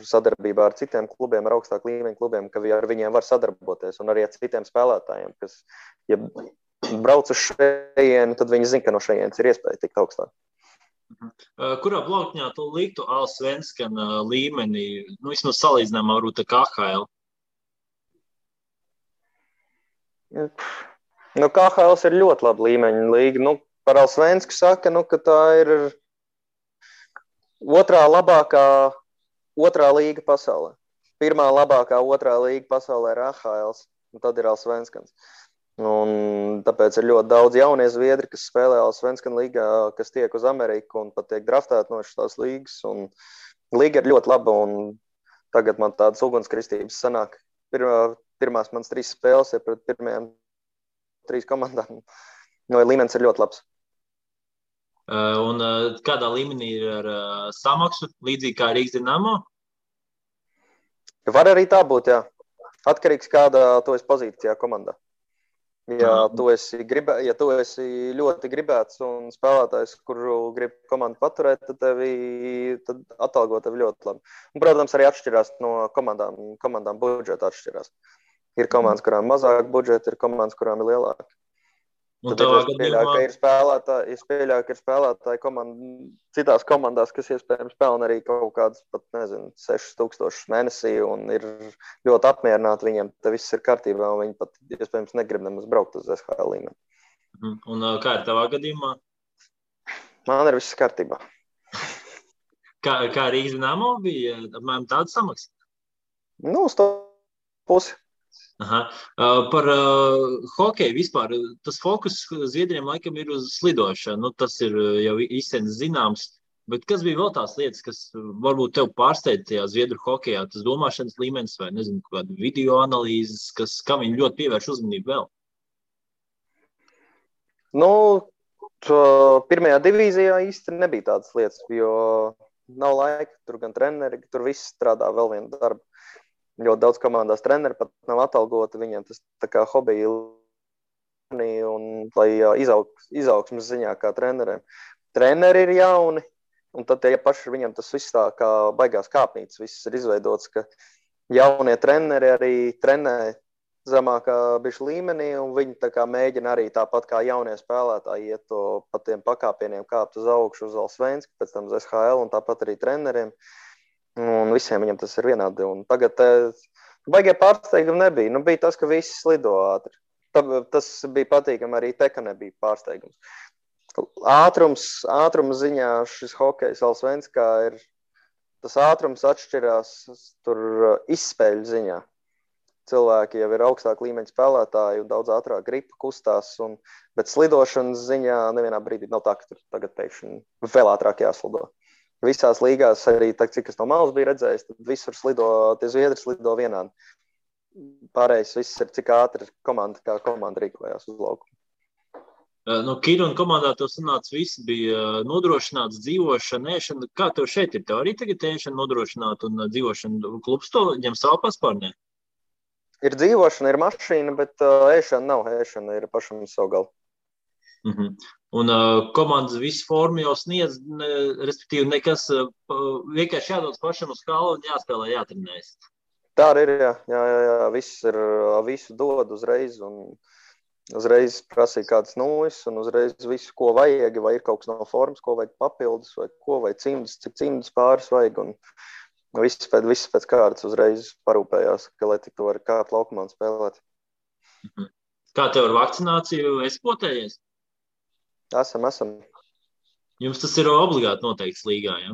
sadarbībā ar citiem klubiem, ar augstāku līmeņu klubiem, ka ar viņiem var sadarboties, un arī ar citiem spēlētājiem, kas, ja brauc uz šejienu, tad viņi zina, ka no šejienes ir iespēja tikt augstāk. Kurā plaukņā tu liktu Allsvenskan līmenī, vismaz salīdzinājumā varbūt ar KHL? KHL ir ļoti laba līmeņa līga. Par Allsvensku saka, ka tā ir otrā līga pasaulē. Pirmā labākā otrā līga pasaulē ir AHL, un tad ir Allsvenskans. Un tāpēc ir ļoti daudz jaunie zviedri, kas spēlē Allsvenskan līgā, kas tiek uz Ameriku un pat tiek draftēti no šīs līgas. Un līga ir ļoti laba, un tagad man tādas ugunskritības sanāk. Pirmās manas 3 spēles ir pret pirmajām 3 komandām. Līmenis ir ļoti labs. Un kādā līmenī ir ar samaksu, līdzīgi kā Rīgas Dinamo? Var arī tā būt, jā. Atkarīgs, kādā tu esi pozīcijā komandā. Ja tu esi ļoti gribēts un spēlētājs, kuru grib komandu paturēt, tad atalgo tevi ļoti labi. Un, protams, arī atšķirās no komandām budžeta atšķirās. Ir komandas, kurām mazāk budžeta, ir komandas, kurām ir lielāka. Es pieļauju, ka ir spēlētāji citās komandās, kas iespējams pelna arī kaut kādas pat, 6,000 mēnesī un ir ļoti apmierināti viņiem, te viss ir kārtībā un viņi pat iespējams negrib nemaz braukt uz SHL līmeni. Un kā ir tavā gadījumā? Man ir viss kārtībā. Kā Rīgas Dinamo bija apmēram tāda samaksa? Uz to pusi. Aha. Par hokeju vispār. Tas fokus Zviedriem laikam ir uz slidošanu. Nu, tas ir jau īstenībā zināms. Bet kas bija vēl tās lietas, kas varbūt tev pārsteidz tajā Zviedru hokejā? Tas domāšanas līmenis vai, nezinu, kāda video analīzes, kam viņi ļoti pievērš uzmanību vēl? Nu, pirmajā divīzijā īsti nebija tādas lietas, jo nav laika. Tur gan treneri, tur viss strādā vēl vienu darbu. Ļoti daudz komandās treneri pat nav atalgoti. Viņiem tas tā kā hobija un lai izaugsmas ziņā kā treneriem. Treneri ir jauni. Un tad ja paši viņam tas viss tā kā baigās kāpnītes, viss ir izveidots, ka jaunie treneri arī trenē zemākā bišķi līmenī, un viņi tā kā mēģina arī tāpat kā jaunie spēlētāji iet to pa tiem pakāpieniem kāpt uz augšu uz Allsvensku, pēc tam uz SHL, un tāpat arī treneriem, un visiem viņam tas ir vienādi. Un tagad baigie pārsteigumi nebija. Nu, bija tas, ka visi slido ātri. Tas bija patīkami, arī te, ka nebija pārsteigums. Ātrums ziņā šis hokejs Allsvenskā ir, tas ātrums atšķirās tur izspēļu ziņā. Cilvēki jau ir augstāk līmeņa spēlētāji un daudz ātrāk gripa kustās, bet slidošanas ziņā nevienā brīdī nav tā, ka tur tagad pēkšņi vēl ātrāk jāslido. Visās līgās arī, cik es no malas biju redzējis, tad visur slido, tie zviedri slido vienādi. Pārējais viss ir, cik ātri kā komanda rīkojās uz laukumu. No Kiruna komandā tev sanāca viss bija nodrošināts dzīvošana, ēšana. Kā tev šeit ir? Tev arī tagad ēšana nodrošināta un dzīvošana klubs to ņem savu paspārnē? Ir dzīvošana, ir mašīna, bet ēšana nav. Ēšana ir pašam savu galu. Un komandas visu formu jau sniedz, respektīvi nekas, vienkārši jādodas pašam uz kalu un jāspēlē, jātrenējas. Tā arī ir, jā. Visu dod uzreiz un uzreiz prasīja kādas nūjas un uzreiz visu, ko vajag, vai ir kaut kas no formas, ko vajag papildus, vai cimdus, cik cimdus pāris vajag. Un viss pēc kārtas uzreiz parūpējās, ka lai tik to var kāpt laukumā un spēlēt. Kā tev ar vakcināciju esi potējies? Esam. Jums tas ir obligāti noteikts līgā, ja?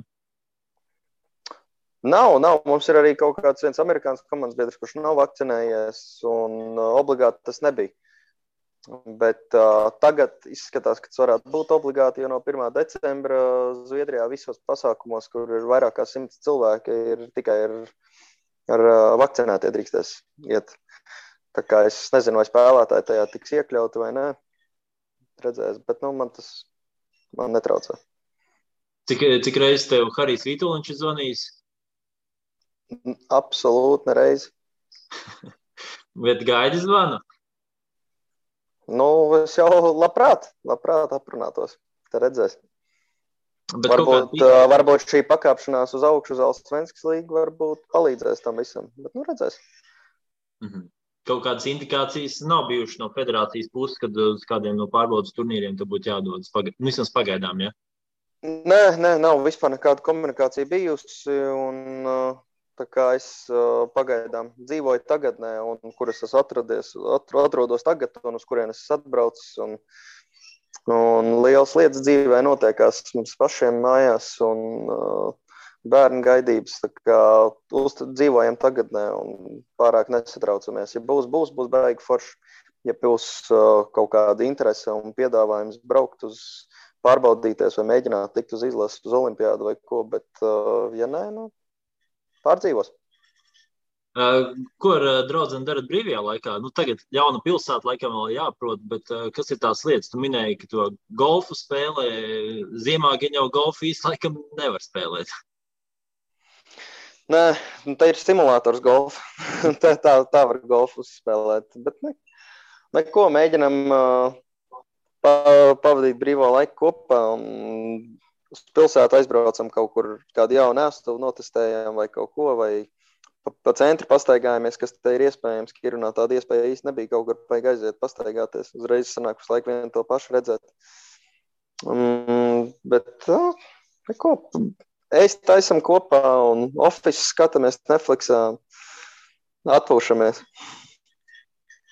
Nav. Mums ir arī kaut kāds viens amerikāns komandas biedrs, kurš nav vakcinējies, un obligāti tas nebija. Bet tagad izskatās, ka tas varētu būt obligāti, jo no 1. decembra Zviedrijā visos pasākumos, kur ir vairāk kā 100 cilvēki, ir tikai ar vakcinētie drīkstēs iet. Tā kā es nezinu, vai spēlētāji tajā tiks iekļauti vai nē. Redzēs, bet man netraucē. Cik reizes tev Harijs Vītoliņš ir zvanījis? Absolūti nereiz. Bet gaidi zvanu? Nu, es jau labprāt aprunātos. Te redzēs. Varbūt šī pakāpšanās uz augšu uz Allsvenskas līgu varbūt palīdzēs tam visam. Bet, redzēs. Kaut kādas indikācijas nav bijušas no federācijas puses, kad uz kādiem no pārbaudas turnīriem te būtu jādodas vismaz pagaidām, ja? Nē, nav vispār nekāda komunikācija bijusi. Un tā kā es pagaidām dzīvoju tagadnē, un kur es esmu atrodos tagad, un uz kurien es atbraucis, un lielas lietas dzīvē notiekās mums pašiem mājās, un bērnu gaidības, tā kā dzīvojam tagadnē, un pārāk nesatraucamies. Ja būs baigi forši, ja būs kaut kāda interese un piedāvājums braukt uz pārbaudīties vai mēģināt tikt uz izlases uz olimpiādu vai ko, bet ja nē, pārdzīvos. Ko ar draudzeni darat brīvajā laikā? Tagad jauna pilsēta laikam vēl jāprot, bet kas ir tās lietas? Tu minēji, ka to golfu spēlē, ziemā gan jau golfu īsti laikam nevar spēlēt. Nē, tā ir simulators golfu. tā var golfu spēlēt, bet neko mēģinam pavadīt brīvo laiku kopā un uz pilsētu aizbraucam kaut kur kādu jaunu ēstuvu notestējām vai kaut ko, vai pa centru pastaigājamies, kas te ir iespējams. Kirunā tāda iespēja īsti nebija, kaut kur vajag aiziet pastaigāties. Uzreiz sanāk uz laiku vienu to pašu redzēt. Bet neko, taisam kopā un office skatāmies Netflixā, atpūšamies.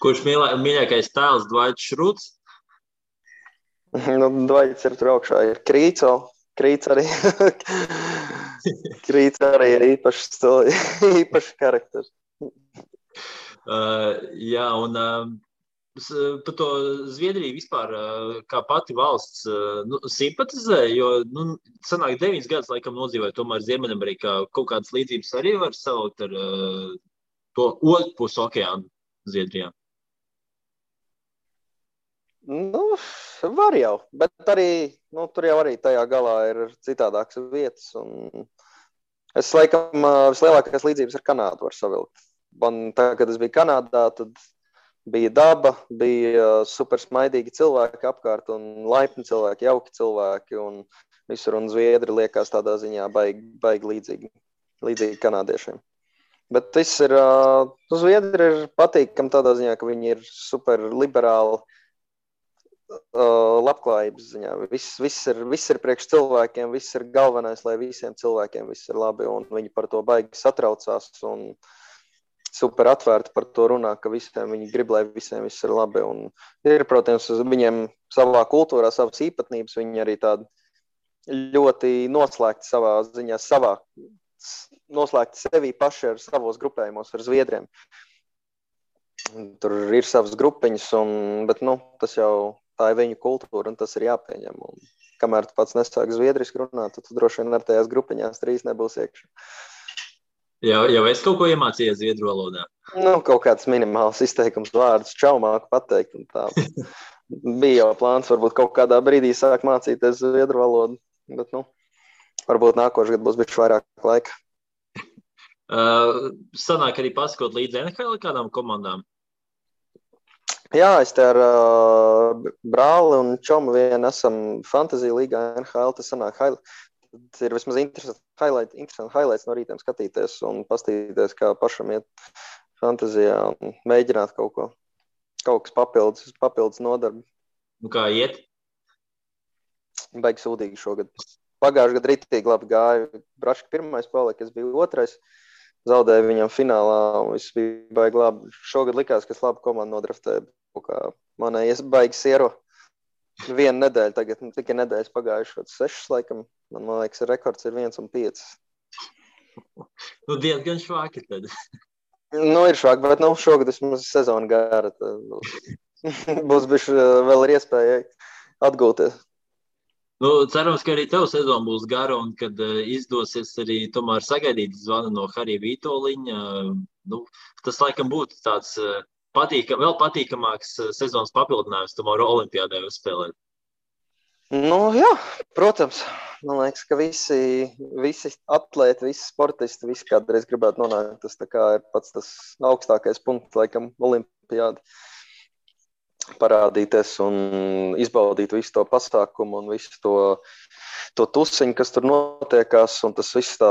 Kurš mīļākais tēls Dvaits Šruts? Dvaits ir tur augšā, ir Krīts arī. Krīts arī ir īpašs karakteris. Jā, un par to Zviedriju vispār kā pati valsts simpatizē, jo sanāk 9 gadus laikam nodzīvoja tomēr Ziemeļamerikā. Kaut kādas līdzības arī var saukt ar to otru pusi okeānu Zviedrijā. Var jau, bet arī, tur jau arī tajā galā ir citādākas vietas. Un es laikam vislielākās līdzības ar Kanādu var savilkt. Man tā, kad es biju Kanādā, tad bija daba, bija super smaidīgi cilvēki apkārt un laipni cilvēki, jauki cilvēki un visur. Un Zviedri liekas tādā ziņā baigi līdzīgi kanādiešiem. Bet viss ir, Zviedri ir patīkami tādā ziņā, ka viņi ir super liberāli. Labklājības ziņā. Viss ir priekš cilvēkiem, viss ir galvenais, lai visiem cilvēkiem viss ir labi, un viņi par to baigi satraucās un super atvērti par to runā, ka viņi grib, lai visiem viss ir labi. Un ir, protams, viņiem savā kultūrā savas īpatnības, viņi arī tādi ļoti noslēgti savā ziņā, noslēgti sevi paši ar savos grupējumos ar Zviedriem. Tur ir savas grupiņas, bet tas jau tā ir viņu kultūra, un tas ir jāpieņem. Un kamēr tu pats nesāk zviedriski runāt, tad tu droši vien ar tajās grupiņās 3 nebūs iekšā. Jau es kaut ko iemācījies zviedru valodā? Kaut kāds minimāls izteikums vārdus čaumāk pateikt. Un tā. Bija jau plāns, varbūt kaut kādā brīdī sāk mācīties zviedru valodu, bet varbūt nākošais gads būs bišķi vairāk laika. Sanāk arī pasakot līdz NHL kādām komandām? Jā, es te ar brāli un čomu vien esam Fantasy līgā NHL, tas sanāk tas ir vismaz interesanti highlights no rītiem skatīties un pastīties, kā pašam iet fantazijā un mēģināt kaut kas papildus nodarbi. Un kā iet? Baigi sūdīgi šogad. Pagājuši gadu ritīgi labi gāja. Braška pirmais palika, es biju otrais. Zaudēju viņam finālā, un viss bija baigi labi. Šogad likās, ka es labu komandu nodraftēju. Manai baigi siero 1 nedēļa tagad, tikai nedēļas pagājušas 6 laikam. Man liekas, rekords ir 1-5. Diezgan švāki tad. Ir švāki, bet šogad vismaz sezona gara. Būs bišķi vēl ir iespēja atgūties. Cerams, ka arī tev sezona būs gara un kad izdosies arī tomēr sagaidīt zvanu no Harija Vītoliņa. Tas laikam būtu tāds vēl patīkamāks sezonas papildinājums tomēr olimpiādē uzspēlēt. Jā, protams. Man liekas, ka visi atlēti, visi sportisti, visi kādreiz gribētu nonākt. Tas tā kā ir pats tas augstākais punkts, laikam, olimpiādi. Parādīties un izbaudīt visu to pasākumu un visu to tusiņu, kas tur notiekās, un tas viss tā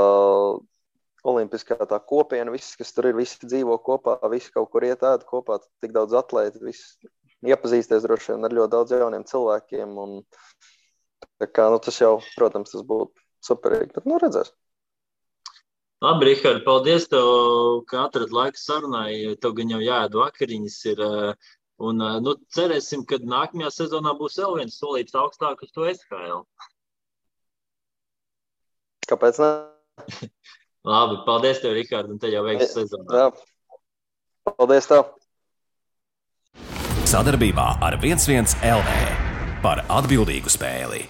olimpiskā tā kopiena, viss, kas tur ir, visi dzīvo kopā, visi kaut kur iet ēd kopā, tik daudz atlēti, visi iepazīsties droši vien ar ļoti daudz jauniem cilvēkiem, un tā kā, tas jau, protams, tas būtu superīgi, bet redzēs. Labi, Rihard, paldies tev, ka atrad laiku sarunai, tev gan jau jāēd vakariņas ir. Un cerēsim, ka nākamajā sezonā būs vēl viens solīts augstāk uz to SHL. Kāpēc ne? Labi, paldies tev, Rihard, un te jau veiks sezonā. Jā, paldies tev. Sadarbībā ar 11 LV par atbildīgu spēli.